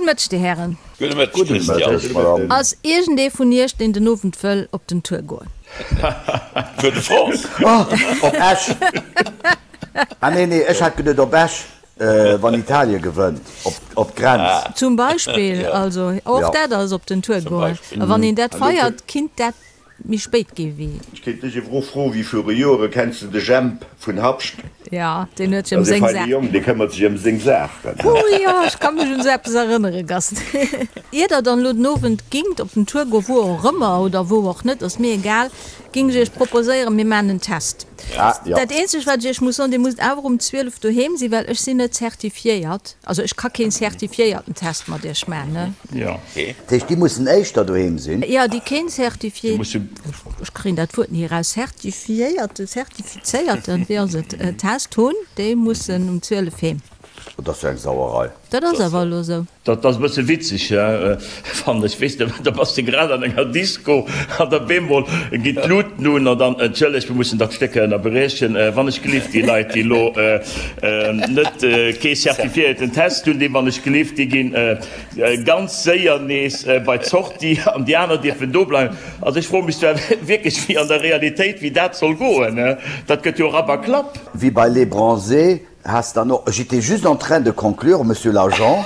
Gudde Mëtteg, Dir Hären. Gudde Mëtteg, Christian. Ass iergendee vun Iech, deen den Owend wëll op den Tour goen? Tour de France? Oh, op Esch! Ah nee, nee, ech hat geduet op Esch, wann Italien gewënnt, op d'Grenz. Zum Beispill, also och dat ass op den Tour goen. A wann een dat feiert, kinnt dat méi spéit gi wéi. Ech kéint dech ewer och froen, wéi viru Joere, kenns de de Jemp vun Habscht? Jo, deen huet sech ëm seng Saach. Dat ass e feine Jong, dee këmmert sech ëm seng Saachen. Oh jo, ech ka mech un esou eppes erënnere, Gast. Ier der dann elo den Owend gingt op den Tour goen, wou och ëmmer oder wou och net, ass mir egal, ging ech iech proposéieren, mir maachen en Test. Dat eenzegt wat ech iech muss soen, dir musst awer um 12 doheem sinn, well ech sinn net zertifiéiert, also ech ka keen zertifiéierten Test mat iech maachen, ne? Jo. Dat heescht, déi mussen éischter doheem sinn? Jo, déi keen zertifié, ech kréien dat Wuert ni eraus, zertifiéierten, zertifizéierten, wéi ass et, Test hunn, déi mussen um 12 heem. Dat ass jo eng Sauerei. Dat ass awer elo esou. Dat ass e bësse witzeg, fannen ech. Weess de, da bass de grad an enger Disco an da bemol ginn d'Luuten un an dann, Entschëllegt, mir mussen dat Stéck ënnerbriechen, wann ech gelift, déi Leit, déi elo net kee zertifiéierten Test hunn, déi wann ech gelift, déi ginn ganz séier nees bei d'Sortie an déi aner dierfen do bleiwen. Also ech froe mech zwar wierklech, wéi an der Realitéit, wéi dat soll goen. Dat gëtt jo Rapp a Klapp. Wéi bei Les Bronzés Has dann och, j'étais juste en train de conclure, Monsieur l'agent.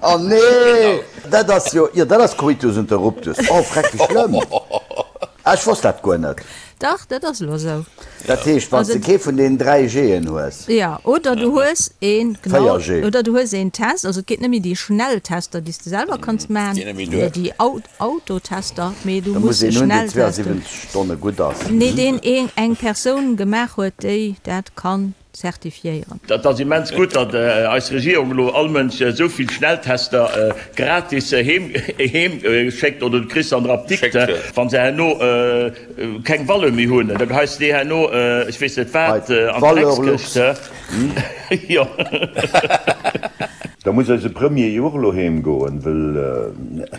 Oh nee, dat ass jo, jo dat ass Coitus interruptus. Oh freck, wéi schlëmm. Ah, ech wosst dat guer net. Dach, dat ass elo esou. Dat heescht, wann s de kee vun deenen 3 G'en hues. Jo, oder du hues een, genau, 4 G. oder du hues een Test, also et geet net méi déi Schnelltester, déi s de selwer kanns maachen, oder déi Autotester, mee du Da muss muss e een hunn, deen Schnelltest hunn. 72 Stonne gutt ass. Nee, deen een eng Persoun gemaach huet, déi dat kann zertifiéieren. Dat ass immens gutt, datt eis Regierung elo all Mënsch esou vill Schnelltester gratis heem schéckt oder du kriss se an der Apdikt, wa se herno keng Valeur méi hunn, da geheis de déi herno, ech weess net wat, an d'Dreckskëscht. Jo. Da muss eise Premier jo och elo heem goen, wëll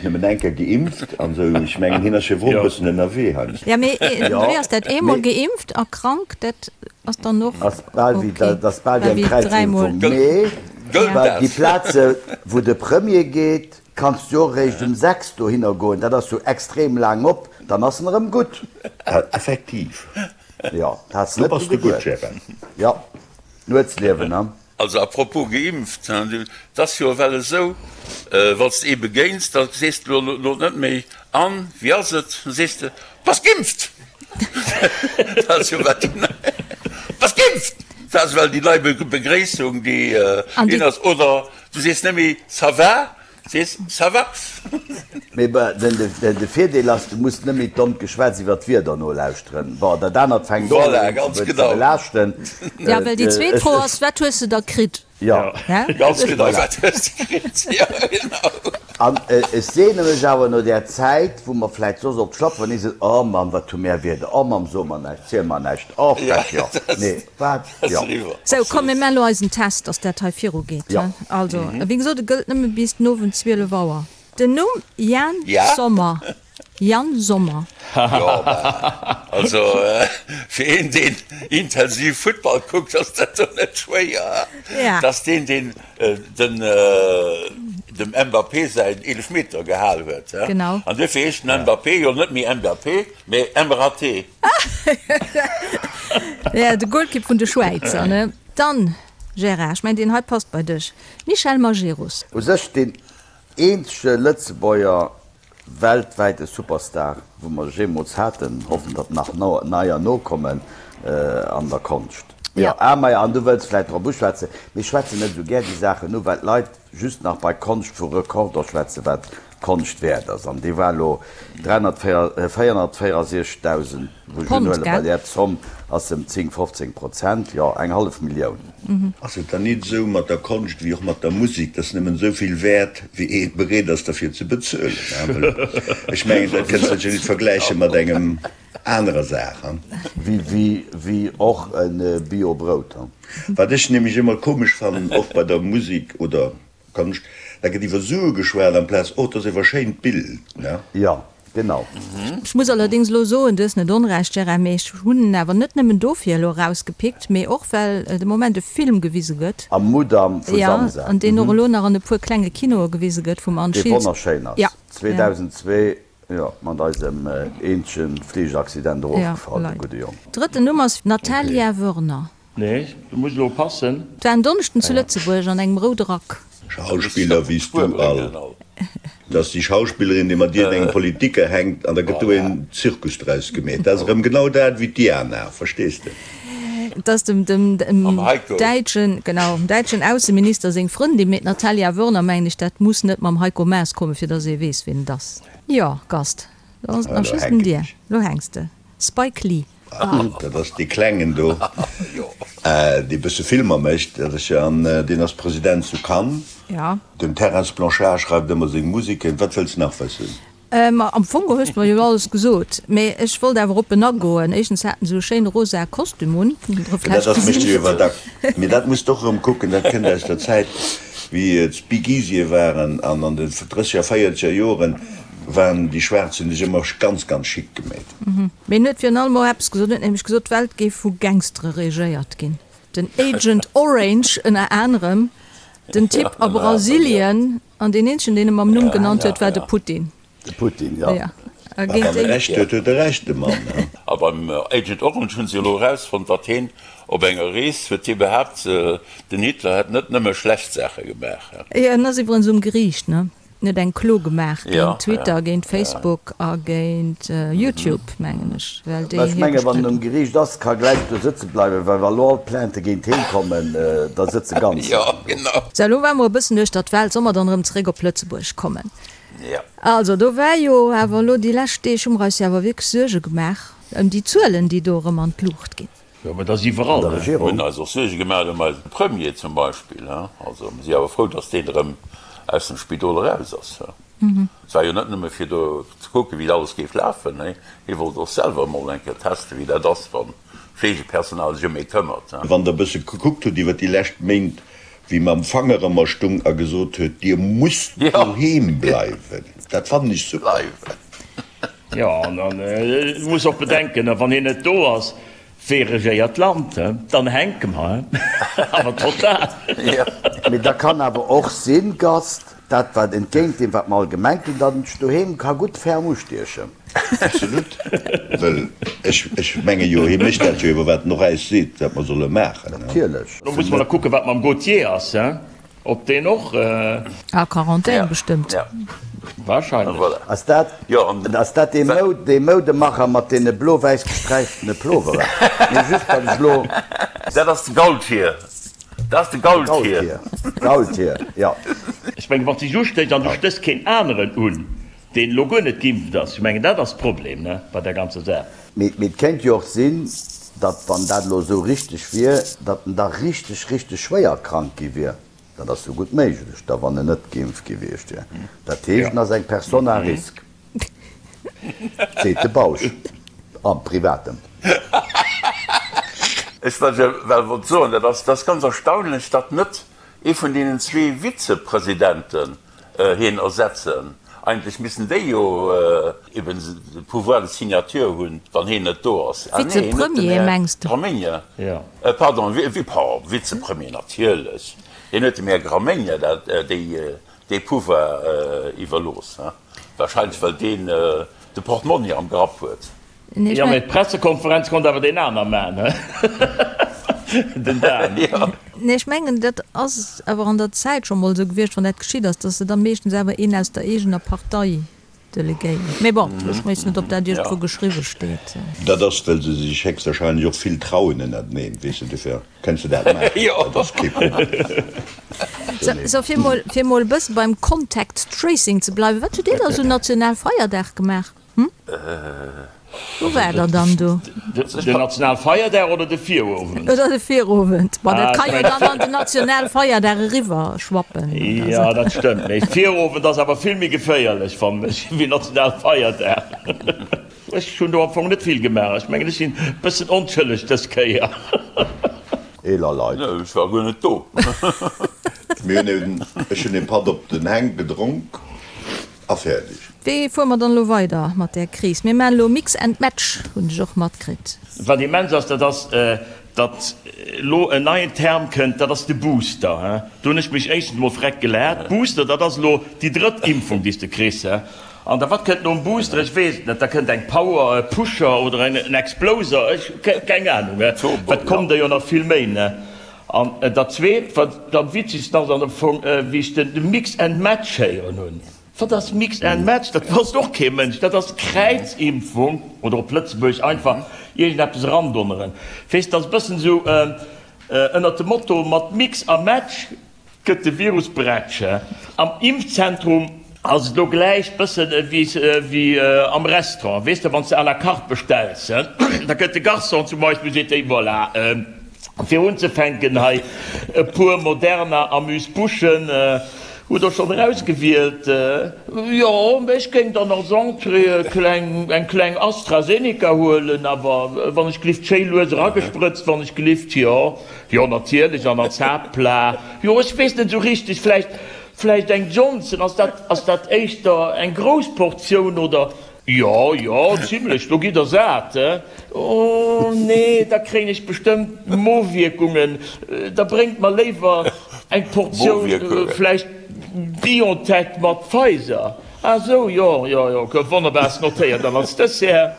nëmmen eng Kéier geimpft an esou. Ech mengen, hien ass jo och e bëssen ënnerwee heiansdo. Jo, mee wéi ass dat, eemol geimpft a krank, dat ass dann och Ass bal wéi, ok, dat ass bal wéi wéi eng dräimol. Kräizimpfung. Mee Gëllt well dat? déi Plaze wou de Premier geet, kanns du jo och eréischt um 6 dohinner goen. Dat ass jo extrem laang op, dann ass en erëm gutt. Effektiv. Jo, dat has Do net bass dru de gutt, geduet. Gérard. Jo, Nuetsliewen, ne? Also à propos geimpft, 't ass jo ewell esou, wann s de ee begéins, da sees de elo net méi, An, wéi ass et? Da sees de, Bass geimpft? Dat ass jo ewell déi nei, Bass geimpft? Dat ass ewell déi nei Begréissung, déi in ass. Oder du sees net méi, Ça va? Sees, ça va? Mee de Virdeel ass, du muss net méi d'dommt Geschwätz iwwer d'Wieder nolauschteren. Bon, dat anert fänkt och Voilà, un ganz ze genau. belaaschten. Ja, well déi zweet Fro ass, Wat hues de da kritt? Jo. Ganz genau, wat hues de kritt? Jo, genau. An ech sehne mech awer no där Zäit, wou mer vläit soss op d'Schlapp waren, nees esou, Oh Mamm, wat hu mär Wieder, oh Mamm, so mer näischt, ziel mer näischt, oh frech, jo, nee, wat, jo. Sou, komm, mir maachen elo eisen Test, dass dat hei virugeet. Jo. Also, wéi gesot, e gëllt nëmme bis den Owend 12 Auer. Den Numm Yann Sommer, Yann Sommer. Jo, bah, also fir een, deen intensiv Futtball kuckt, ass dat do net schwéier. Ja. Dass deen, deen den dem Mbappé säin Eelefmeter gehal huet. Genau. An duerfir heescht den Mbappé jo net méi Mbappé, mee Mraté. Ja, de Golkipp vun de Schwäizer, ne? Dann, Gérard, ech mengen, deen hei passt bei dech, Michel Majerus. U sech deen eenzege Lëtzebuerger weltwäite Superstar, wou mer jeemools haten. Hoffen, datt nach neier nokommen an der Konscht. Jo, ah maja, an du wëlls vläit drop uschwätzen, mir schwätzen net esou gär déi Saachen u, well d'Leit just nach bei Konscht vu Rekorder schwätzen, wat Konscht wäert ass. An dee war elo 464.000, wou ech Pond, unhuelen, bei gell? där Zomm ass em 10, 15 Prozent, jo, eng hallef Millioun. Ass et dann nit esou mat der Konscht wéi och mat der Musik, dass nëmmen esou vill wäert, wéi ee bereet ass derfir ze bezuelen? Well ech mengen, dat kënns de jo nit vergläiche mat engem anerer Saach. Wéi och e Bio-Brout. Wat ech nämlech ëmmer komesch fannen, och bei der Musik oder Konscht, da gëtt iwwer Sue geschwat amplaz, oh, 't ass ewer schéint Bild, ne? Jo. Genau. Ech muss allerdéngs elo soen, du hues net onrecht, Gérard, mee ech hunn en awer net nëmmen dofir elo erausgepickt, mee och well de Moment e Film gewise gëtt. Am Mudam vu Samsa. Jo, an deen och elo nach an e puer klenge Kinoe gewise gëtt vum Anne Dee Schiltz. wonnerschéin ass. Ja. 2002, jo, mat eisem eenzege Fligeraccident erofgefall, de gudde Jong. Drëtten Numm ass Natalia Wörner. Nee, du muss elo passen. Et war en Donneschden zu Lëtzebuerg an engem roude Rack. Schauspiller wéi s du all. Dat ass déi Schauspillerin, déi mat iergendengem Politiker hänkt an da gëtt do een Zirkus draus gemeet. Dat ass erëm genau dat wéi d'Diana, verstees de? Et ass dem däitschen, genau, dem däitschen Ausseminister seng Frëndin, mee d'Natalia Wörner, mengen ech, dat muss net mam Heiko Maas kommen, fir datt ee weess, wien et ass. Jo, Gast, da ass et nach just un dir. Elo hänks de. Spike Lee. Dat ass dee Klengen do, dee bësse Filmer mécht. Dat ass jo, an deen ass President zu Cannes. Den Terence Blanchard schreift ëmmer seng Museken. Wat wëlls nach wëssen? Ma am Fong hues de mer jo alles gesot. Mee ech wollt awer op en agoen. Éischtens hat en esou e schéine rosae Kostüm un. Dat ass mécht jo iwwer dack. Mee dat muss de och erëm kucken. Dat kënnt aus der Zäit, wéi et Speakeasye waren an an den drësseger, véierzeger Joren waren déi Schwaarz hunn sech ëmmer ganz, ganz chic gemeet. Mee en huet virun allem och eppes gesot, en huet nämlech gesot, d'Welt géif vu Gangstere regéiert ginn. Den Agent Orange ënner anerem, den Typ a Brasilien, an deen eenzegen, deen e mam Numm genannt huet, war de Putin. De Putin, jo. Ja. A wann e Recht huet, huet e Recht, de Mann, ne? A beim Agent Orange hunn se elo erausfonnt, datt heen op enger Rees huet hie behaapt, den Hitler hätt net nëmme schlecht Saache gemaach. Jo, en ass iwwerens um Geriicht, ne? En huet eng Klo gemaach géint Twitter, géint Facebook a géint YouTube, mengen ech, well déi Mä ech hie menge wann en um bestritten. Geriicht ass, ka gläich do sëtze bleiwen, well wa lo all d'Plaintë géint heen kommen, da sëtze ganz laang do. Sou, elo ware mer e bëssen uechter d'Welt, soll mer dann erëm zeréck op Lëtzebuerg kommen? Also, do war jo awer elo déi lescht Deeg, hu mer eis jo awer wierklech Suerge gemaach ëm déi Zuelen, déi do erëm an d'Luucht ginn. Jo, mä dat ass iwwerall, An der ne? Regierung. Hunn eis och Suerge gemaach ëm eise Premier zum Beispill. Also mir si awer frou, datt deen erëm aus dem Spidol eraus ass. Et war jo net nëmme fir do ze kucken, wéi alles géif lafen, nee, hie wollt och selwer emol eng Kéier testen, wéi dat ass, wann d'Fleegepersonal sech ëm ee këmmert. Wann Der e bësse gekuckt hutt iwwer déi lescht Méint, wéi mam Fanger ëmmer stung a gesot huet, Dir musst doheem bleiwen, dat fannen ech super. Jo, an du muss och bedenken, wann hien net do ass, wee regéiert d'Land? Dann hänke mer, awer total. Mee da kann awer och sinn, Gast, dat wat entgéint deem wat mer all gemengt hunn, datt en sech doheem ka gutt ferm ustiechen. Absolut, well ech ech menge jo, hie mécht dat jo iwwer wat en och äis seet, wat mer solle maachen. Natierlech. Lo musse mer nach kucken, wat mam Gauthier ass. Op deen och? A Quarantän bestëmmt. Wahrscheinlech. Ass dat, ass dat dee Mou, dee Moudemacher mat deene blo-wäiss gesträiftene Ploveren? Nee, just well ech elo. Dat ass de Gaultier. Dat ass de Gaultier. Gaultier, jo. Ech mengen, wann s de dech ustéchs an du stéchs keen aneren un, deen elo guer net geimpft ass, ech mengen, dat ass d'Problem, ne, bei där ganzer Saach. Mee, mee et kéint jo och sinn, datt, wann dat elo esou richteg wier, datt en da richteg, richteg schwéier krank gi wier. Dat ass jo gutt méiglech da, wann en net geimpft gewiescht wier. Dat heescht, en ass eng Personne à risque, seet de Bausch am Privaten. Ech well wollt soen, dat ass, dat ass ganz erstaunlech, datt net ee vun deenen zwee Vizepresidenten hien ersetzen. Eigentlech missten déi jo eben de Pouvoir de signature hunn, wann hien net do ass. Ah nee, hien huet den Vizepremier Här mengs de? Gramegna, pardon, Vizepremier natierlech, hien huet dem Här Gramegna dat, déi, dee Pouvoir iwwerlooss, wahrscheinlech well deen de Portmonni am Grapp huet. Jo, mee d'Pressekonferenz konnt awer deen aner man, he? Den Dan. Nee, ech mengen, dat ass awer an der Zäit scho mol esou gewiescht, wann dat geschitt ass, datt se da meeschtens awer een aus der eegener Partei delegéieren. Mee bon, ech weess net, ob dat iergendwou geschriwwe steet. Dat ass, well se sech héchstwahrscheinlech och vill trauen ënnerteneen, weess de, dofir kënns de dat maachen, dat ass kee Problem. Sou, fir mol, fir mol e bësse beim Contact Tracing ze bleiwen, Wat hutt Dir da sou Nationalfeierdag gemaach? Hm? Wou war der dann do? Den Nationalfeierdag oder de Virowend? Oder de Virowend. Bon, dat ka jo dann an den Nationalfeierdag eriwwer schwappen. Jo, dat stëmmt. Mee Virowend ass awer vill méi geféierlech, fannen ech, wéi Nationalfeierdag. Ech hunn do am Fong net vill gemaach. Ech mengen, ech sinn e bëssen onschëlleg dës Kéier. Eeler Leit. Ech war guer net do. Mir hunn eben, ech hunn e Patt op den Hänk gedronk a fäerdeg. Wéi fuere mer dann elo weider mat där Kris? Mir maachen elo Mix and Match, hunn ech och matkritt. Wat immens ass, dat ass, datt elo en neien Term kënnt, dat ass de Booster. Do hunn ech mech éischtens emol freck gelaacht. Booster, dat ass elo déi drëtt Impfung, déi s de kriss. An da wat kënnt nom Booster? Ech weess et net. Da kënnt eng Power, e Pusher oder en Exploser, ech keng Anung. Et kommen der jo nach vill méi. An dat Zweet, wat am witzegsten ass am Fong, wéi ech de Mix and Match héieren hunn. Wat ass Mix and Match? Dat wosst och kee Mënsch. Dat ass Kräizimpfung oder op Lëtzebuergesch einfach iergendeppes erandonneren. Weess, dat ass e bëssen esou ënnert dem Motto mat Mix a Match gëtt de Virus bretsch. Am Impfzentrum ass et elo gläich bëssen ewéi am Restaurant. Weess de, wann s de à la carte bestells, da kënnt de Garçon zum Beispill, seet, Hey, voilà, fir unzefänken hei e puer Moderna Amuse-Bouchen. Hutt der schonn erausgewielt? Jo, mä ech géing dann als Entrée e kleng, eng kleng AstraZeneca huelen, awer wann ech glift schéi lues eragesprëtzt, wann ech glift, jo, jo natierlech, an als Haaptplat, jo, ech weess net esou richteg, vläicht, vläicht eng Johnson, ass dat, ass dat éischter eng grouss Portioun oder? Jo, jo, zimlech, do gitt der sat, he? Oh nee, da kréien ech bestëmmt Mowierkungen, da bréngt mer léiwer eng Portioun vläicht Biontech mat Pfizer. Ah sou, jo, jo, jo, gouf wonnerbar, ass notéiert. An als Dessert?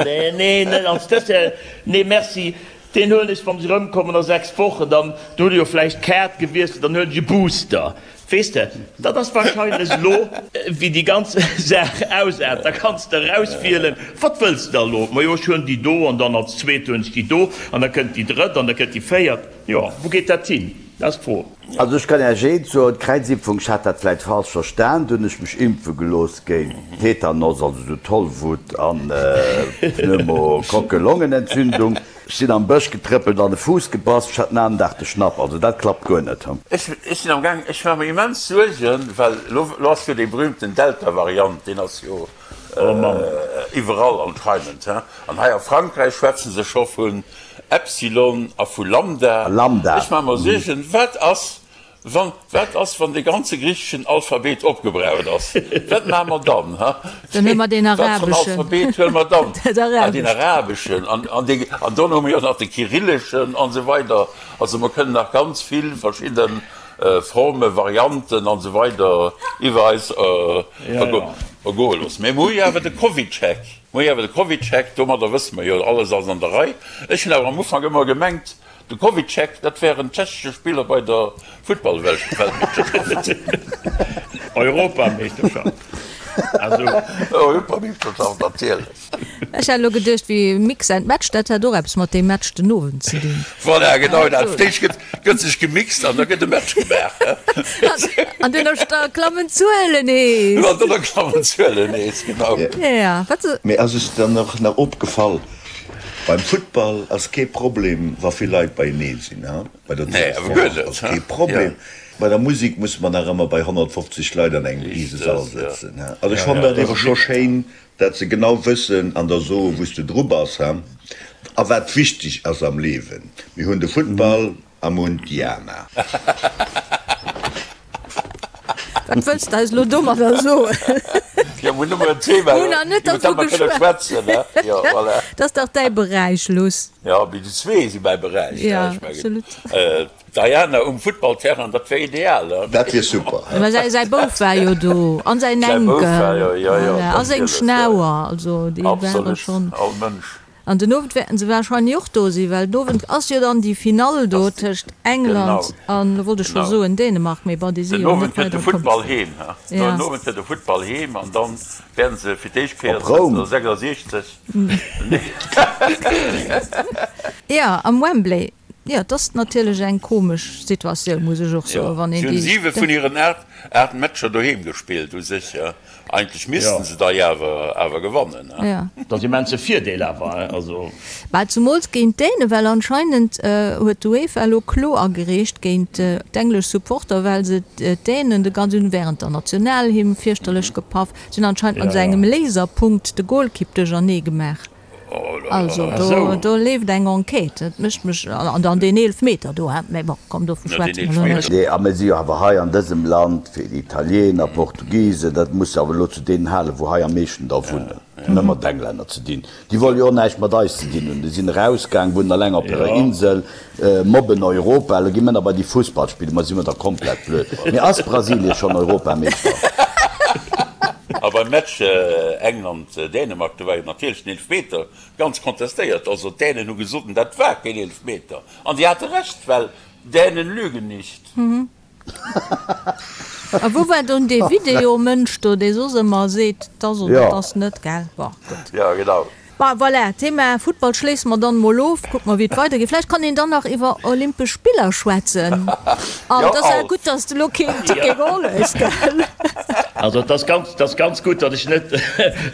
Nee, nee, net als Dessert, nee merci, deen huelen ech, wann ech erëmkommen a 6 Wochen, dann hutt der jo vläicht d'Kaart gewiesselt, dann huelen ech e Booster. Weess de, dat ass wahrscheinlech elo, wéi déi ganz Saach ausaart. Da kanns de erauswielen, Wat wëlls de da elo? Majo, ech huelen déi do an dann als zweet huelen ech déi do an da kënnt déi drëtt an da kënnt déi véiert. Jo, wou geet dat hin? Dat ass d'Fro. Also ech kann Iech eent soen, d'Kräizimpfung, ech hat dat vläit falsch verstan, do hunn ech mech impfe gelooss géint Tetanos, also esou Tollwut an Pneumokokkelongenentzündung. Ech sinn am Bësch getrëppelt an e Fuuss gebass, ech hat den aneren Dag de Schnapp, also dat klappt guer net. Ech sinn am gaang, ech maache mer immens Suergen, well elo ass jo dee berühmten Delta-Variant, deen ass jo iwwerall anscheinend, he. An hei a Frankräich schwätze se scho vun Epsilon a vu Lambda. Ech maache mer Suergen, wat ass, Wann, wat ass, wann de ganze griicheschen Alphabet opgebraucht ass? Wat maache mer dann, ha? Dann huele mer deen Wat fir en arabeschen. Alphabet huele mer dann? Dat Ah, deen arabescht. arabeschen. An, an dee, an dann hu mer jo nach de kyrilleschen an esou weider. Also mer kënnen nach ganz vill verschidde Formen, Varianten an esou weider iwwer eis ergoe loossen. Mä mer hu jo awer de CovidCheck. Mer hu jo awer de CovidCheck, domadder wësse mer jo, alles ass an der Rei. Ech hunn awer am Ufank ëmmer gemengt, De CovidCheck, dat wär en tschechesche Spiller bei der Futtballweltmeeschterschaft. Europameeschterschaft, also. Europameeschterschaft, natierlech. Ech hat elo geduecht, wéi Mix and Match, dat hätt och eppes mat deem Match den Owend ze dinn. Voilà, genau dat. Fir d'éischt gëtt, gëtt sech gemixt an da gëtt e Match gemaach. An duerno klammen d'Zuelen nees. An duerno klammen d'Zuelen nees, genau. Ja, wat. Mee ass es dann och nach opgefall, Beim Futtball ass kee Problem wa vill Leit beienee sinn, ha? Bei der Tour de France ass kee Problem. Bei der Musik musse mer nach ëmmer bei 150 Leit an engem Risesall sëtzen, ha? Also ech fannen dat ewer scho schéin, dat se genau wëssen an der soen, wou s de dru bass, ha? A wat wichteg ass am Liewen. Mir hunn de Futtball, A Mund Diana. Wat wëlls de eis elo domadder soen? Jo, mir hunn nëmmen en Thema, Mir hunn nach net iwwer dat dervu mer kënne geschwat. schwätzen, ne? Jo, voilà. Dat ass dach däi Beräich, Luss. Jo, mee déi zwee si mäi Beräich, ne? Ja, Ech mengen, absolut. d'Diana um Futtballterrain, dat wär ideal, ne? Dat wier super. Mä säi, säi Bouf war jo do, an säin Säi Bouf Enkel, war jo, jo, jo, voilà, a seng natierlech, jo, jo. Schnauer, also déi ware Absolut, schonn. all Mënsch. An den Owend wäerten se wahrscheinlech och do sinn, well den Owend ass jo dann déi Finall do tëscht England an, elo wollt ech scho soen Dänemark, mee bon, déi si Den jo Owend net kënnt de weider komm. Futtball heem, ha? Den Owend kënnt de Futtball heem an dann wäerten se fir d'éischt Kéier Op Roum. 1966. Jo, am Wembley. Jo, et ass natierlech eng komesch Situatioun, muss ech och soen, wann een Si hunn déi. 7 vun hiren 8 Matcher doheem gespillt u sech. Eigentlech missten se dei awer awer gewannen, he? Ja. Dat ass immens e Virdeel awer, he? Also. Bah, zumools géint d'Dänen, well anscheinend huet d'UEFA elo Klo agereecht géint d'englesch Supporter, well se d'Dänen de ganzen während der Nationalhymn fierchterlech gepaff. Se hunn anscheinend mat esou engem Laserpunkt de Golkipp duerchernee gemaach. Also do, do leeft eng Enquête. Dat mécht mech, an dann deen Eelefmeter do, hein, mä bon, komm, dovu schwätze mer elo net. Nee, a mir si jo awer hei an dësem Land fir Italiener, Portugisen, dat muss awer elo zu deenen halen, wou hei am meeschten der wunnen, net mat Englänner ze dinn. Déi wolle jo och näischt mat eis ze dinn hunn. Déi sinn erausgaang, wunnen eleng op hirer Insel, mobben Europa. Elo gi mir nach bei déi Fussball spillen. Ma si mer da komplett blöd? Mee ass Brasilien schonn Europameeschter? A beim Match England-Dänemark, do war jo natierlech den Eelefmeter ganz kontestéiert. Also d'Dänen hu gesot, dat war keen Eelefmeter. An si hate Recht, well Dänen lügen nicht. A wou war dunn dee Videomënsch do, dee soss ëmmer seet, 't ass oder 't ass net, gell? Bon, gutt. Jo, genau. Bon, voilà, Thema Futtball schléisse mer dann emol of. Kucke mer, wéi et weidergeet. Vläicht kann een dann nach iwwer Olympesch Spiller schwätzen. An et ass awer gutt, dass de elo keen Ticket geholl hues, gell? Also et ass ganz, et ass ganz gutt, datt ech net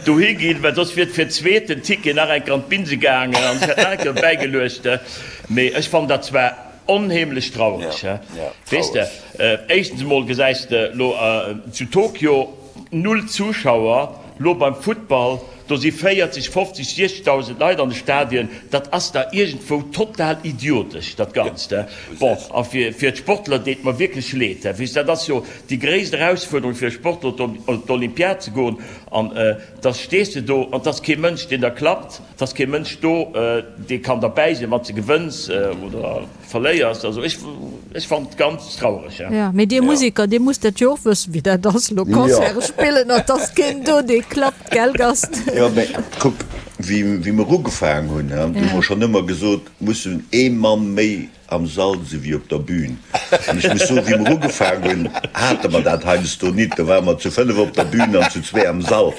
dohi ginn, well soss wier et fir d'zweet den Ticket nach eng Kéier an d'Binse gaangen an ech hätt nach eng Kéier bäigeluecht. Mee ech fannen dat zwar onheemlech traureg, weess de. Éischtens emol gesäis de lo zu Tokio null Zuschauer, lo beim Futtball, do si 40, 50, 60.000 Leit an de Stadien, dat ass da iergendwou total idiotesch dat Ganzt. Bon, a fir d'Sportler deet mer wierklech leed, weess de, dat ass jo déi gréisst Erausfuerderung fir e Sportler op d'Olympiad ze goen an da stees de do an 't ass kee Mënsch deen der klappt, 't ass kee Mënsch do dee kann derbäi sinn wann s de gewënns oder. Verléiers. Also ech ech fannen et ganz traureg. Jo, mee dir Musiker, dir musst dat jo och wëssen, wéi dat ass, elo Concerte spillen an 't ass keen do, dee klappt, gell Gast? Jo, mee kuck, wéi wéi mer ugefaang hunn, hu mer schonn ëmmer gesot, mussen ee Mann méi am Sall si wéi op der Bühn. An ech muss soen, wéi mer ugefaang hunn, hate mer dat heiansdo nit. Do ware mer zu 5 op der Bühn an zu zwee am Sall.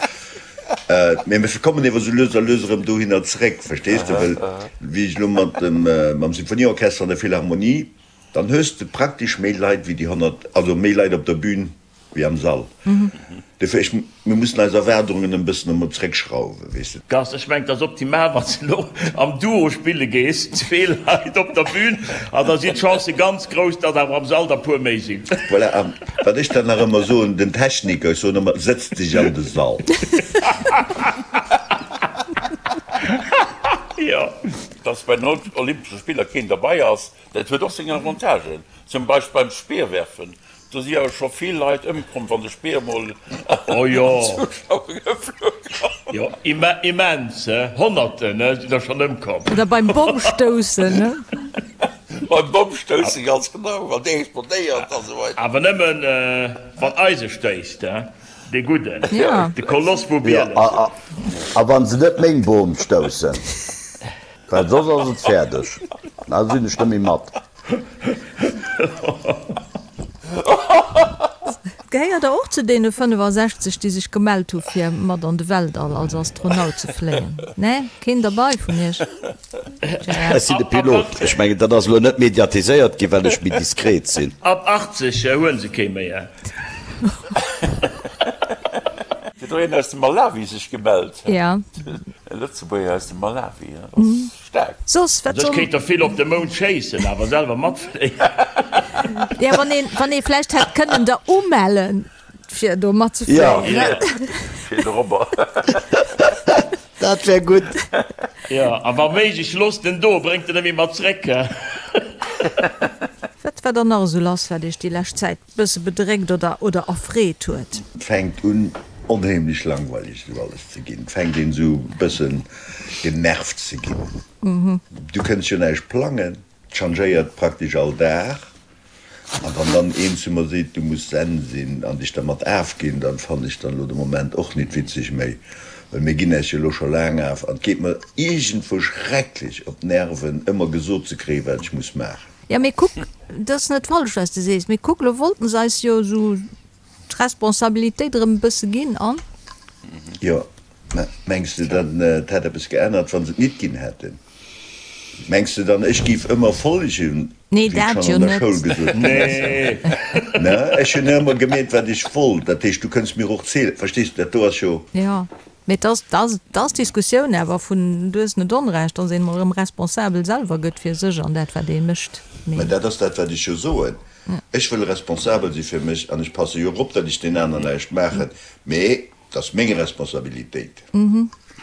Mee mir kommen ewer sou lues a lues erëm dohinner zréck, verstees de? Well wéi ech elo mat dem, mam Symphonieorchester an der Philharmonie, dann hues de praktesch méi Leit wéi déi 100, also méi Leit op der Bühn wéi am Sall. Dofir, ech, mir mussen eis Erwaardungen en bëssen emol zréckschrauwen, weess de. Gast, Ech mengen, et ass optimal, wann s de elo am Duo spille gees, zwee Leit op der Bühn, an da sinn d'Chancë ganz grouss, datt awer am Sall der puer méi sinn. Voilà, a wat ech dann nach ëmmer soen, den Techniker, ech soen ëmmer, sëtz dech an de Sall. Jo. Dass bei den Olympesche Spiller keen derbei ass, dat huet och seng Avantagen. Zum Beispill beim Speerwerfen, do si awer scho vill Leit ëmkomm, wann de Speer emol Oh an jo, d'Zuschauer geflunn ass. jo, immens, Honnerten sinn der schonn ëmkomm. Oder beim Bommstoussen, ne? Beim Bommstoussen, ganz genau, wann dee explodéiert a sou weider. Awer nëmmen wann eise stéisst, dee Gudden, de Koloss vu Bieles. A wann se net meng Bom stoussen, well soss ass et fäerdeg, da sinn ech net méi mat. Gehéiert der och zu deene 65, déi sech gemellt hu fir mat an de Weltall als Astronaut ze fléien? Nee? Keen derbei vun iech? Gérard? Ech sinn de Pilot. Ech mengen, dat ass elo net mediatiséiert ginn, well ech méi diskret sinn. Ab 80 huelen se kee méi. Huet och een aus dem Malawi sech gemellt? Ja. E Lëtzebuerger aus dem Malawi, dat ass. Staark. Soss, wat Also ech soll. kéint der vill op de Mound schéissen, awer selwer matfléien. Ja, wann een, wann ee vläicht hätt kënnen der umellen, fir do matzefléien, ne? Fir de Robber. Dat wär gutt. Jo, a wa méiglech, loosst en do, bréngt en net méi mat zréck. Wat war dann nach esou lass, wat Iech déi lescht Zäit bësse bedréckt oder, oder erfreet huet? Et fänkt un onheemlech langweileg esou alles ze ginn. Et fänkt een esou bëssen genervt ze ginn. Du kënns jo näischt plangen, et changéiert praktesch all Dag. An wann dann een zu mer seet, du muss zen sinn an dech dermat afginn, dann fannen ech dann elo de Moment och nit witzeg méi, well mir ginn äis jo elo scho laang af an et geet mer iergendwou schrecklech op d'Nerven ëmmer gesot ze kréien, wat ech muss maachen. Jo, mee kuck, dat ass net falsch, wat s de sees, mee kuck, elo wollten se eis jo esou d'Responsabilitéit erëm e bësse ginn an. Jo, mä mengs de dann, et hätt eppes geännert, wa se et nit ginn hätten? Mengs de dann, ech géif ëmmer follegen, Nee, wéi et dat schonn jo an der net. Schoul gesot ginn ass? Nee. Ne, ech hunn ëmmer gemeet, wat ech wollt. Dat heescht, du kënns mir och zielen, verstees de, dat do ass jo. Jo, mee et ass, et ass, et ass d'Diskussioun awer vun, du hues net Onrecht, dass een emol erëm responsabel selwer gëtt fir sech an dat, wat ee mécht. Mä Mee. dat ass dat, wat ech jo soen. Ech wëll responsabel si fir mech an ech passe jo och op, datt ech den aneren näischt maachen, mee et ass meng Responsabilitéit.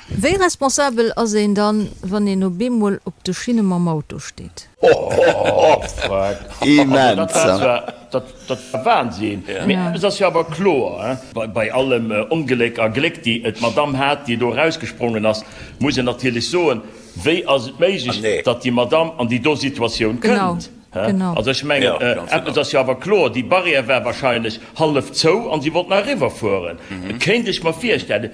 Wéi responsabel ass een dann, wann een op eemol op de Schinne mam Auto steet? Immens! Dat war Wahnsinn! Mee eppes ass jo awer kloer, bei allem Ongléck a Gléck, déi d'Madamm hat, déi do erausgesprongen ass, muss een natierlech soen, wéi ass et méiglech, datt déi Madamm an déi do Situatioun kënnt? Also ech mengen, eppes ass jo awer kloer, déi Barrière war wahrscheinlech hallef zou an si wollt nach eriwwerfueren, kéint ech mer virstellen.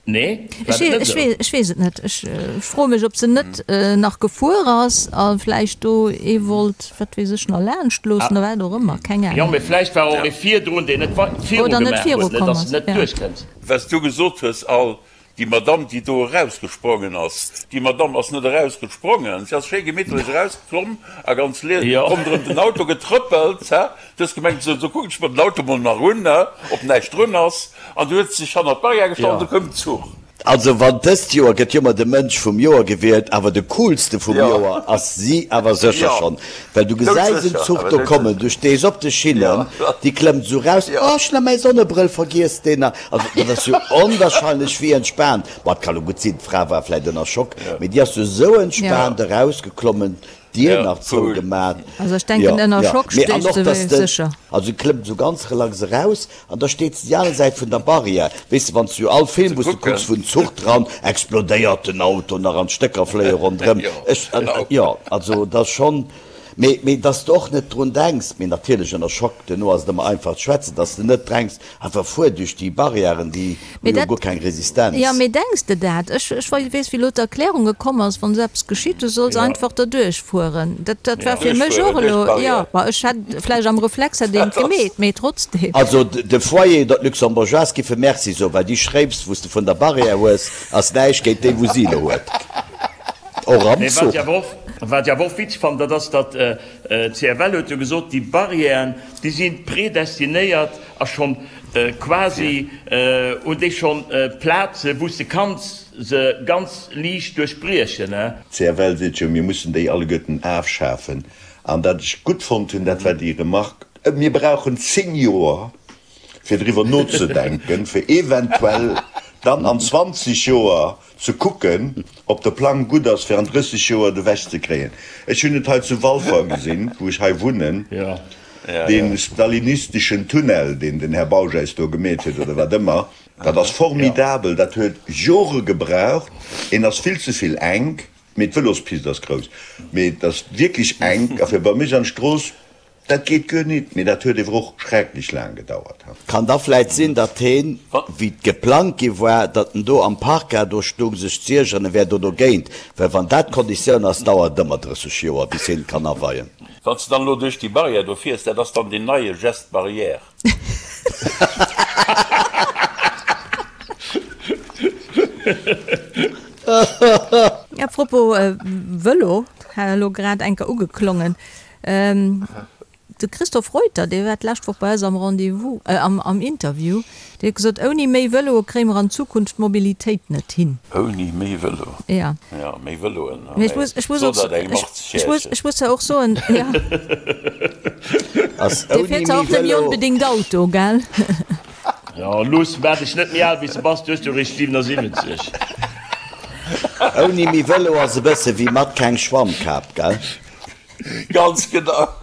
Nee, war et net esou? Ech weess et net. Ech froe mech, ob se net nach gefuer ass a vläicht do ee wollt, wat weess ech, nach laanscht loossen oder wat och ëmmer. Keng Ahnung. Jo, mee vläicht war och ee virdrun, deen net viru gemaach huet, net dass en net duerchkënnt. Wat s du gesot hues, Al, déi Madamm, déi do erausgesprongen ass, déi Madamm ass net erausgesprongen, si ass schéi gemittlech erausklomm a ganz lies ronderëm den Auto getrëppelt. Du hues gemengt, sou, sou kucken ech mer den Auto mol nach un, ob näischt drun ass. An du huet sech hannert d'Barrière gestallt an du koum den Zuch. Also wann dëst Joer gëtt jo ëmmer de Mënsch vum Joer gewielt, awer de coolste vum Joer ass si awer sécher schonn. Well du gesäis en Zuch do kommen, du stees op de Schinnen, déi klëmmt esou raus, oh ech hunn nach mäi Sonnebrëll vergiess, deen nach, also dat ass jo onwahrscheinlech wéi entspaant. Bon, et ka lo gutt sinn, d'Fra war vläit ënner Schock, mee déi ass jo esou entspaant erausgeklommen, D'Dier nach zou gemat. Also ech denken ënner Schock steet se sécher. Also klëmmt esou ganz relax eraus an da steet se déi aner Säit vun der Barrière. Weess de wann s du all Film wou s du kucks wou en Zuch dran explodéiert, den Auto nach an d'Stécker fléie ronderëm. Ech jo also et ass schonn, mee mee dass de och net drun denks, mee natierlech ënner Schock, duerno ass et ëmmer einfach ze schwätzen, dass de net drenks, Einfach fuer duerch déi Barrièren, déi hu jo guer keng Resistenz. Jo, mee denks de dat? Ech weess, wéi elo d'Erklärung gekomm ass, wann esou eppes geschitt, du solls einfach derduerch fueren. Dat war fir mech och elo, jo, ma ech hätt vläicht am Reflex hätt een et gemeet, mee trotzdem. Also de Foyer oder d'Luxembourgeoise giffe Merci soen, well déi Schréips, wou s de vun der Barrière hues, ass näischt géint déi, wou si elo huet. Och am Zuch. Wat ech awer och witzeg fannen, dat ass, datt d'CFL huet jo gesot, déi Barrièren, déi si predestinéiert a schonn quasi hunn déi schonn Plaze wou s de kanns se ganz liicht duerchbriechen. D'CFL seet jo, mir mussen déi alleguerten afschafen. An dat ech gutt fonnt hunn, dat war déi Remarque, mir brauchen 10 Joer, fir driwwer nozedenken, fir eventuell dann an 20 Joer ze kucken, ob de Plang gutt ass, fir an 30 Joer et ewech ze kréien. Ech hunn et hei zu Walfer gesinn, wou ech hei wunnen, dee stalinisteschen Tunnel, deen den Här Bausch eis do gemeet huet, oder wat ëmmer, dat ass formidabel, dat huet Jore gebraucht, en ass vill ze vill enk, mee d'Vëlospist ass grouss, mee et ass wierklech enk, a fir bei mech an d'Strooss, Dat geet guer nit, mee dat huet ewer och schrecklech laang gedauert. Kann da vläit sinn, datt heen, wéi et geplangt gi war, datt en do am Parker do stung sech z'iergeren, en wär do dogéint, well wann dat d'Konditioun ass, dauert et ëmmer 30 Joer bis heen et kann aweien. Wann s de dann elo duerch déi Barrière do fiers, dat ass dann deen neie Geste barrière. A propos Vëlo, hat elo grad eng Kéier ugeklongen. De Christophe Reuter, dee war d'lescht Woch bei eis am Rendez-vous, am Interview, dee huet gesot, ouni méi Vëloe kréie mer an Zukunft d'Mobilitéit net hin. Ouni méi Vëlo? Ja. Ja, méi Vëloen. Mee ech muss, ech muss och, ech muss zwar och soen, jo. Dee fiert zwar och net méi onbedéngt Auto, gell? Jo, luuss, maach dech net méi al wéi s de bass, du hues jo eréischt 77. Ouni méi Vëlo ass e bësse wéi mat keng Schwammkap, gell? Ganz genau.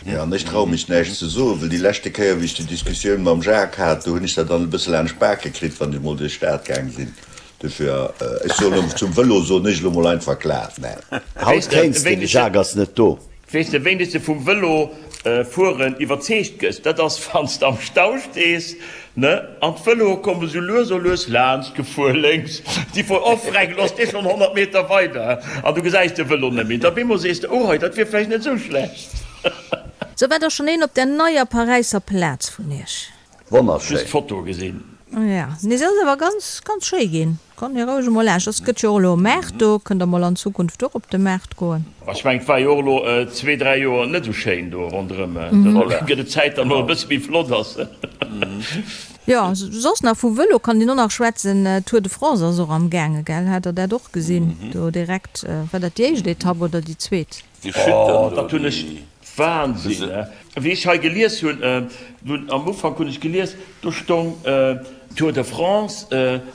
Jo, an ech traue mech näischt ze soen, well déi leschte Kéier, wéi ech déi Diskussioun mam Jacques hat, do hunn ech dat dann e bësse laanscht d'Bake kritt, wann ech emol duerch d'Stad gaang sinn. Dofir, ech soen elo, zum Vëlo soen ech elo mol einfach glat Neen. Haut kéints de, de Jacques ass net do. Weess de, wéini s de vum Vëlo fueren iwwerzeegt gëss? Dat ass, wann s de am Stau stees, ne, an d'Vëloe komme sou lues o lues laanscht gefuer, lénks, déi fueren, oh freck, elo ass dee schonn 100 Meter weider, an du gesäis de Vëlo net méi. Da bemol sees de, oh hei, dat wier vläicht net sou schlecht. Sou, war da schonn een op der neier Paräisser Plaz vun iech? Wonnerschéin. Just d'Foto gesinn. Ja, nee se ass awer ganz ganz schéi ginn. Kommt mir roueg emol laanscht. Ass gëtt jo och elo e Maart do, kënnt der mol an Zukunft och op de Maart goen. Ech mengen et war jo och elo zwee, dräi Joer net esou schéin do ronderëm. Da gëtt et Zäit datt mol e bësse méi flott ass. Jo, soss nach vu Vëlo kann een och nach schwätzen. Tour de France ass och am gaange, gell? Hat der dat och gesinn do direkt? War dat déi éischt Etapp oder déi zweet? Déi Chute do, Dat hunn ech déi. Wahnsinn, he? Wéi ech hei gelies hunn, dunn am Ufank hunn ech gelies, do stong Tour de France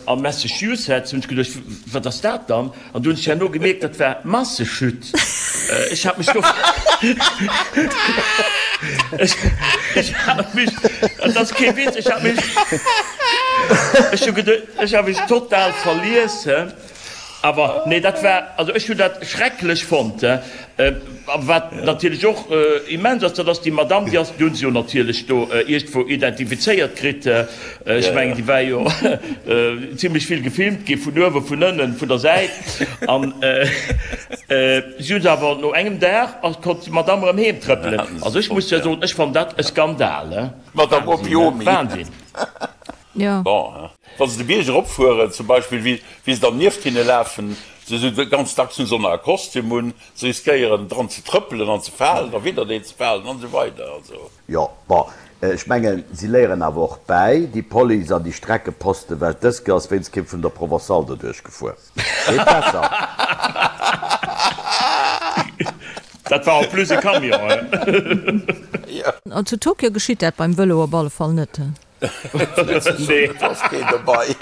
a Massachusetts, hunn ech geduecht, wat ass dat dann? An du hunn ech herno gemierkt, dat war Massechute. Ech hat mech do, ech hat mech, dat ass kee Witz, ech hat mech, ech hu geduecht, ech hat mech total verlies, he. Awer nee, dat war, also ech hunn dat schrecklech fonnt. A wat natierlech och immens ass, dat ass déi Madamm, déi ass, déi hu se jo natierlech do iergendwou identifizéiert kritt. Ech mengen, déi war jo zimlech vill gefilmt gi vun uewen, vun ënnen, vun der Säit. An si hu se awer no engem Dag, konnt déi Madamm erëm heem trëppelen. Also ech muss jo soen, ech fannen dat e Skandal. Madamm Opiomi. Wahnsinn. Jo. Bon, wa se de Bierg eropfueren zum Beispill, wéi wéi se dann nieft hinne lafen, se sou ganz dacks hunn se och nach e Kostüm un, se riskéieren dran ze trëppelen an ze falen, da widdereen ze falen an esou weider. Also. Jo, bon, ech mengen, si léieren awer och bäi, déi Police an déi Streckeposten, well dës Kéier ass wéinst kee vun der Provençale doduerch gefuer. Geet besser. Dat war en plus e Camion, he? An zu Tokio geschitt dat beim Vëlo op alle Fall net. Nee. Ass keen dobei.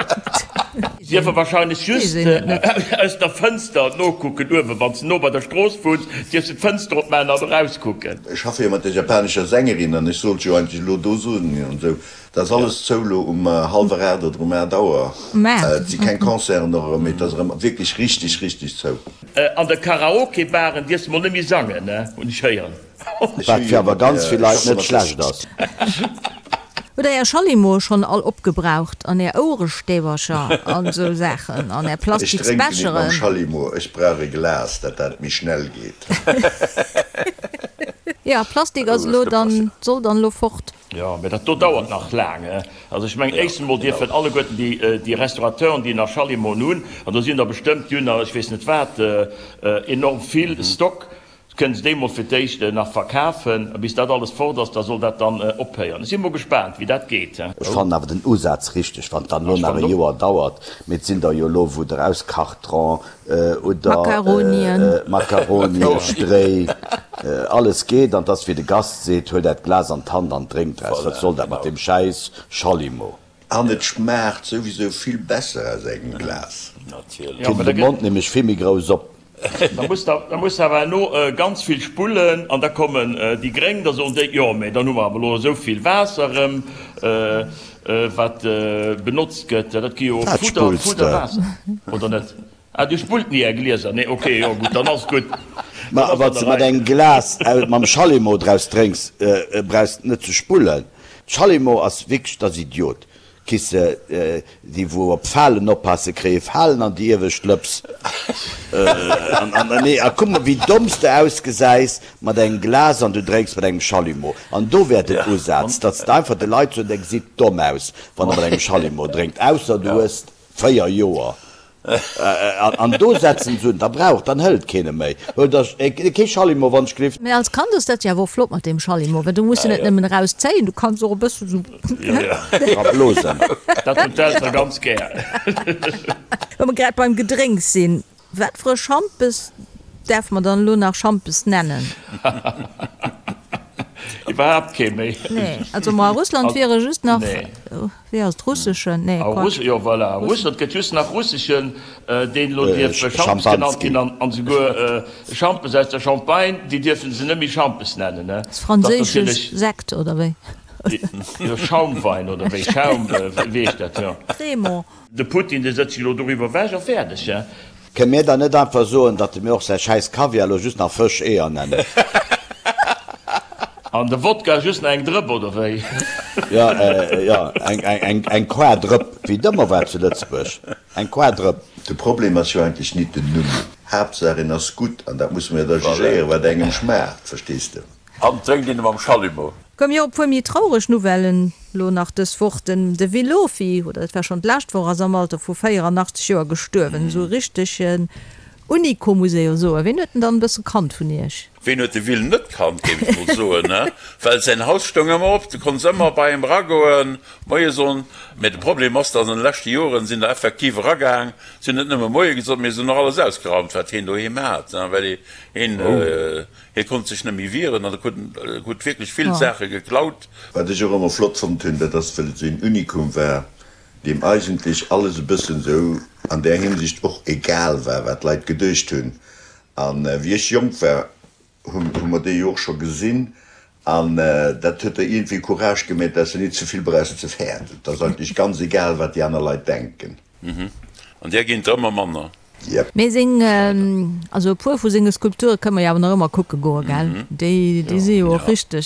Dierfe wahrscheinlech just aus der Fënster nokucken uewen, wann s de no bei der Strooss wunns, dierfs de d'Fënster opmaachen an erauskucken. Ech schaffe jo mat der japanescher Sängerin an ech sollt jo eigentlech elo do soen an esou. Et ass alles zou elo um hallwer 8 oder um 8 Auer. Et si keng Concerten och erëm, mee et ass erëm wierklech richteg, richteg zou. An de Karaoke-Baren dierfs de mol net méi sangen, hunn ech héieren. Wat fir awer ganz vill Leit net schlecht ass. Hutt der är Schallimoe schonn all opgebraucht an är Ouerestäbercher an esou Saachen an är Ech drénken nit mam Plastiksbecheren? Schallimo, ech brauch e Glas, dat dat méi schnell geet. Jo, Plastik ass elo dann, soll dann elo fort. Jo, mä dat do dauert nach laang. Also ech mengen, éischstens emol dierfen alleguerten déi, déi Restaurateuren, déi nach Schallimoen hunn, an do sinn der bestëmmt, déi hunn der ech weess net wat, enorm vill Stock, Kënnt se déi mol fir d'éischt nach verkafen, a bis dat alles fort ass, da soll dat dann ophéieren. Ech si mol gespaant, wéi dat geet. Ech fannen awer den Usaz richteg, wann et dann elo nach e Joer dauert, mee et sinn der jo elo wou der aus Kartron oder Macaronien, Stréi, alles geet, an et ass wéi de Gast seet, huelt äert Glas an d'Hand an drénkt draus, wat soll dat mat deem schäiss Schallimo. An et schmaacht souwisou vill besser aus engem Glas. Natierlech. Kritt de Mond nämlech vill méi grouss op. Da muss der, da muss der awer herno ganz vill spullen an da kommen déi Gréng, da soen déi, jo mä dann hu mer awer elo esou vill Waasser erëm, wat benotzt gëtt. Dat gi jo Wat Fudder, spulls de? Fudder Waasser, oder net? Ah, Dir spullt ni Är Glieser? Nee, okay, jo gutt, dann ass et gutt. Ma Dann ass wann an s der de mat Rei. engem Glas mam Schallimo draus drénks, brauchs de net ze spullen. Schallimo ass wierklech, dat ass Idiot. Kisse, déi wou op Falen oppassen, kréie Falen an déi iewescht Lëps. An nee, a kuck mol wéi domm s de ausgesäis mat engem Glas an du drénks mat engem Schallimo. An do wär den Usaz, datt s de einfach de Leit soen, der gesitt domm aus, wann der mat engem Schallimo drénkt, ausser du hues 4 Joer. An do setzen se un, da brauch, dann hëlt keen e méi. Huelt der kee Schallimo, wann ech gelift. Mee als Kand ass dat jo awer och flott mat deem Schallimo, well du muss en net nëmmen erauszéien, du kanns och e bëssen esou dra blosen. Dat hunn d'Eltere ganz gär. Wa mer grad beim Gedrénks sinn, wat fir e Schampes däerfe mer dann elo nach Schampes nennen? Iwwerhaapt kee méi. Nee, also ma a Russland wiere just nach. Wéi ass et, russeschen? Nee, Quatsch. Jo, voilà, a Russland gëtt just nach russeschen, deen elo dierf Schampes genannt ginn, an esouguer Schampes aus der Champagne, déi dierfe se net méi Schampes nennen, ne? Ass franséische Sekt, oder wéi? Jo, Schaumwein, oder wéi? Schaum, wéi heescht dat, jo. Crémant. De Putin, dee sëtzt sech elo doriwwer ewech a fäerdeg, he? Kënne mir dann net einfach soen, datt de mir och säi schäiss Kaviar elo just nach Fësch-Eeër nennen? An de Wodka just nach eng Drëpp, oder wéi? Jo, jo, eng Quadrëpp, wéi et ëmmer war zu Lëtzebuerg, eng Quadrëpp. De Problem ass jo eigentlech nit den Numm. Haaptsaach en ass gutt, an dat musse mer jo da jugéieren, wat engem schmaacht, verstees de? An drénkt een e mam Schallimo. Komm jo, e puer méi traureg Nouvellen lo nach dës Woch. Den de Willofi, oder et war schonn d'lescht Woch, ass am Alter vu 84 Joer gestuerwen. Esou e richtege. Unico muss ee jo soen. Ween huet en dann e bësse kannt vun iech? Ween huet de Will net kannt, géif ech mol soen, ne? Well säin Haus stoung ëmmer op, du konns ëmmer bei him eragoen, Moie soen. Mä de Problem ass, datt an de leschte Joren sinn der effektiv eragaang, si hunn net nëmme Moie gesot, mee se hunn och alles ausgeraumt, wat hien doheem hat, ne? Well hien, hie konnt sech net méi wieren an e krut, krut wierklech vill Saache geklaut. Wat ech och ëmmer flott fonnt hunn, dat ass, well et esou een Unikum war, deem eigentlech alles e bëssen esou an där Hinsicht och egal war, wat d'Leit geduecht hunn. An wéi ech jonk war, hu mer déi jo och scho gesinn, an dat huet der iergendwéi Courage gemeet, dass de nit ze vill brauchs ze fäerten. Et ass eigentlech ganz egal, wat déi aner Leit denken. An där ginn der ëmmer manner. Jep. Mee seng, also e puer vu senge Skulpture kënne mer jo awer nach ëmmer kucke goe, gell? Déi si jo och richteg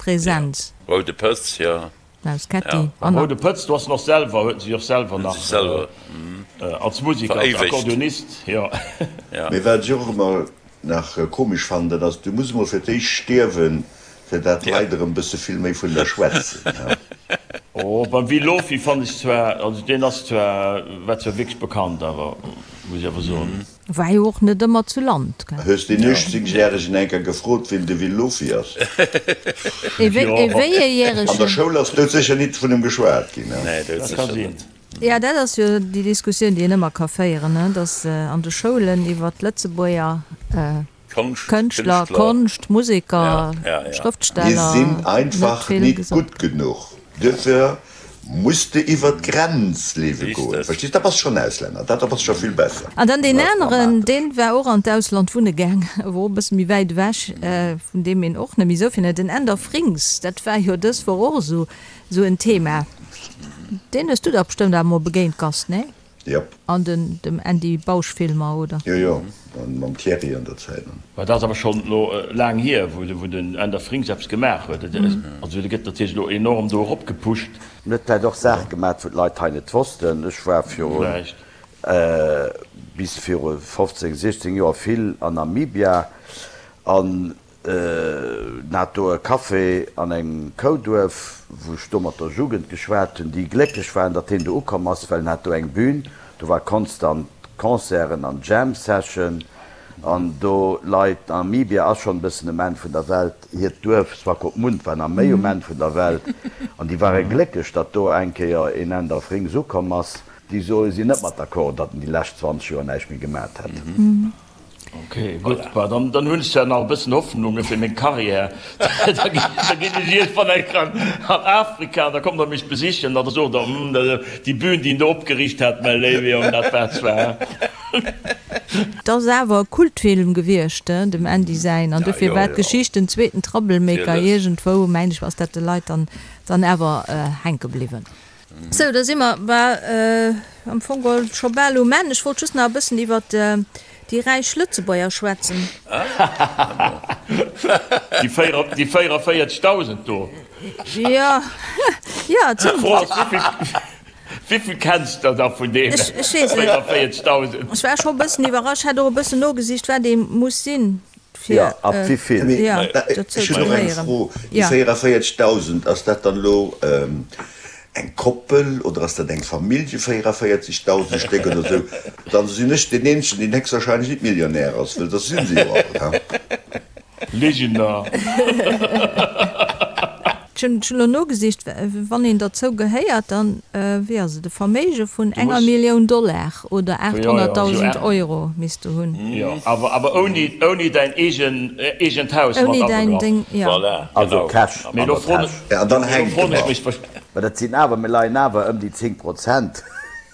present. Roude Pëtz, jo. Maus Ketti, Beim Roude Pëtz, do ass en och selwer, huet en sech och selwer nach als Musiker, als Akkordeonist, jo. Mee wat ech och ëmmer nach komesch fannen, dat ass, du muss emol fir d'éischt stierwen, fir dat d'Leit erëm bësse vill méi vun der schwätzen. Oh, beim Will Lofy fannen ech zwar, also deen ass zwar, war zwar wierklech bekannt awer, muss ech awer soen. War jo och net ëmmer zu Land, gell? Hues deen 18 järegen enker gefrot wien de Will Lofy ass? Ee wéi ee järegen? An der Schoul ass doudsécher nit vun em geschwat ginn. Nee, doudsécher net. Jo, dat ass jo déi Diskussioun, déi een ëmmer ka féieren, ne, datt an de Schoulen iwwer d'Lëtzebuerger Kënschtler, Konscht, Museker, Schrëftsteller Mir sinn einfach nit gutt genuch. Duerfir muss de iwwer d'Grenz leewe goen. Verstees? Da bass schonn Auslänner. Dat ass scho vill besser. An dann deen aneren, deen war och an d'Ausland wunne gaang, awer och e bësse méi wäit ewech, vun deem een och net méi esou vill huet, den Änder Frings. Dat war jo dës Woch och esou en Thema. Deen hues du dach bestëmmt awer mol begéint, Gast, nee? Jop. An den dem Andy Bausch Filmer, oder? Jo jo, an mam Thierry an der Zäit. Mä dat ass awer schonn elo laang hier, wou den Änder Frings eppes gemaach huet. Also dee gëtt natierlech elo enorm do eropgepusht. En huet vläicht och Saache gemaat, wou d'Leit hei net wossten. Ech war virun, bis viru 15, 16 Joer vill an Namibia an En hat do e Café an engem Kouduerf, wou ech do mat der Jugend geschwat hunn, déi glécklech waren, datt hien do ukomm ass, well en hat do eng Bühn, do war konstant Concerten an Jam Session an do Leit. Namibia ass schonn e bëssen um Enn vun der Welt, hiert Duerf Swakopmund war nach méi um Enn vun der Welt an déi ware glécklech, datt do eng Kéier een Änder Frings ukomm ass. Déi soe sinn net mat d'accord, datt en déi lescht 20 Joer näischt méi gemat hätt. Ok, gutt, bah, dann, dann hunn ech zwar nach e bëssen Hoffnunge fir meng Karriär. Da ginn ech iergendwann eng Kéier an Afrika an da kommt der mech besichen an da sot der, Hm, déi Bühn, déi en do opgeriicht hat, mäi léiwe Jong, dat war zwar. Et ass awer e Kultfilm gewiescht, dem Andy säin, an dofir war d'Geschicht den zweeten Troublemaker iergendwou, mengen ech, ass dat de Leit dann, dann awer hänke bliwwen. Sou, da si mer am Fong geholl scho bal um Enn. Ech wollt just nach e bëssen iwwert déi räich Lëtzebuerger schwätzen. Déi 44.000 do. Jo, jo, et sinn. D'Fro ass, wéivill kenns de da vun deene 44.000? Ech war scho e bëssen iwwerrascht, hat och e bëssen nogesicht, wat ee muss sinn, fir Jo, ab wéivill? Jo, dozou Ech ze hunn och eng gehéieren. Fro, Déi 44.000, ass dat dann elo eng Koppel oder ass dat eng Famillje, 44.000 Stéck oder esou? Dann sinn ech deen eenzegen, deen héchstwahrscheinlech nit Millionär ass, well dat si se jo all, he? Ligener. Ech hunn elo nogesicht, wann een derzou gehéiert, dann, wéi ass et, e Verméige vun enger Millioun Dollar oder 800.000 Euro misst de hunn. Jo, awer ouni däin eegent Haus mat abegraff. Voilà, Also Cash an der Täsch. An dann hänkt en nach. Mä dat sinn awer, mir leien awer ëm déi 10 Prozent,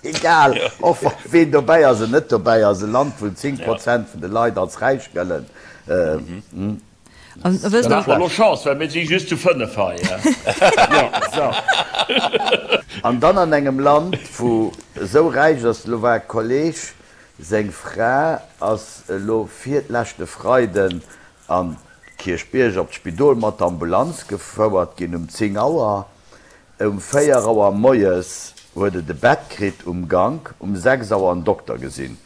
egal och ween dobäi ass an net dobäi ass, e Land wou 10 Prozent vun de Leit als räich gëllen. An wësst Dann hat mer lo Chance, well mir si just zu 5 hei. Jo, sou. An dann an engem Land, wou esou räich ass. Elo war e Kolleg, seng Fra ass elo virleschte Freiden an Kierchbierg op d'Spidol mat der Ambulanz gefouert ginn um 10 Auer. Um 4 Auer moies huet et e Bett kritt um Gank, um 6 Auer en Dokter gesinn.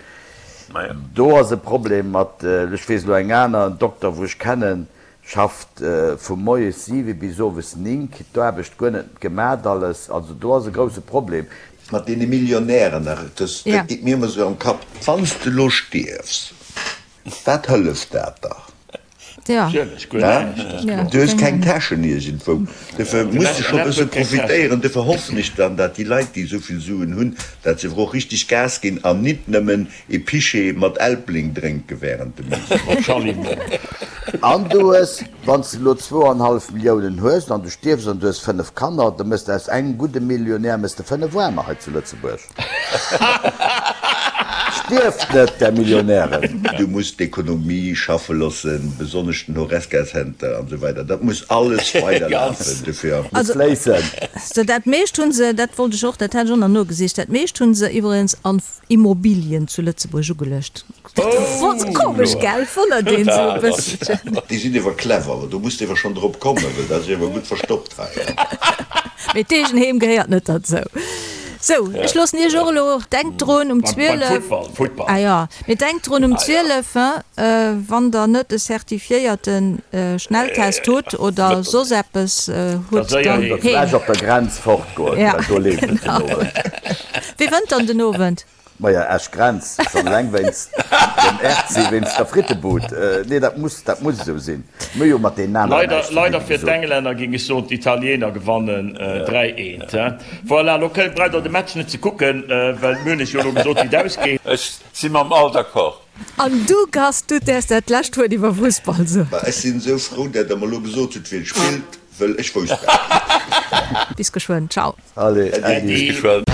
Do ass e Problem mat, ech weess elo eng aner, en Dokter wou ech kennen, schafft vu moies 7 bis owes 9, kritt d'Aarbecht guer net gemat alles. Also do ass e grousse Problem. Mat deene Millionären nach, dat geet mir ëmmer esou am Kapp, wann s de elo stierfs, wat hëlleft dat da? Du hues keng Täschen iergendwou. Dofir muss de scho e bësse profitéieren. Dofir hoffen ech dann, dat déi Leit, déi esou vill Suen hunn, dat se awer och richteg Gas ginn an nit nëmmen ee Pichet mat Elbling drénke während dem Meeting. An du hues, wann s de elo zwouanhallef Milliounen hues an du stierfs an du hues 5 Kanner, da méchs de aus engem gudde Millionär méchs de 5 Aarmer hei zu Lëtzebuerg. Stierft net, där Millionären! Du muss d'Ekonomie schaffe loossen, besonnesch den Horesca-Center an esou weider. Dat muss alles weiderlafen. Dofir. Muss fléissen. Also dat meescht hu se, dat wollt ech och, dat hat ech och nach nogesicht, dat meescht hu se iwweregens an Immobilien zu Lëtzebuerg ugeluecht. Dat komesch, gell? Wonnert een sou e bësselchen. Déi sinn ewer clever, awer do muss de ewer schonn drop kommen, well dat ass ewer gutt verstoppt hei. Mee d'Eegenheem gehéiert net derzou. Sou, ech loossen iech och elo. Denkt drun um 12. Ah jo, mee denkt drun um 12, hein, wann der net e certifiéierte Schnelltest hutt oder soss eppes hutt, dann heem. Vläch op der Grenz fortgoen, well do leeft et den Owend. Wie wënnt dann den Owend? Maja, Esch Grenz, schonn eleng wéinst dem RC, wéinst der Frittebud. Nee, dat muss, dat muss esou sinn. Mir hu jo mat deenen aneren näischt ze dinn, Leider fir d'Englänner géing ech soen, d'Italiener gewannen 3, 1. Voilà, elo braucht der de Match net ze kucken, well mir hunn iech jo elo gesot, wéi et ausgeet. Ech si mam Al d'accord. An du, Gast, du däerfs dat lescht Wuert iwwer Fussball soen. Ma ech sinn esou frou, dat der mer elo gesot hutt, wien spillt, wëll ech wousst dat net. Bis geschwënn, ciao. Allez, Äddi. Bis geschwënn.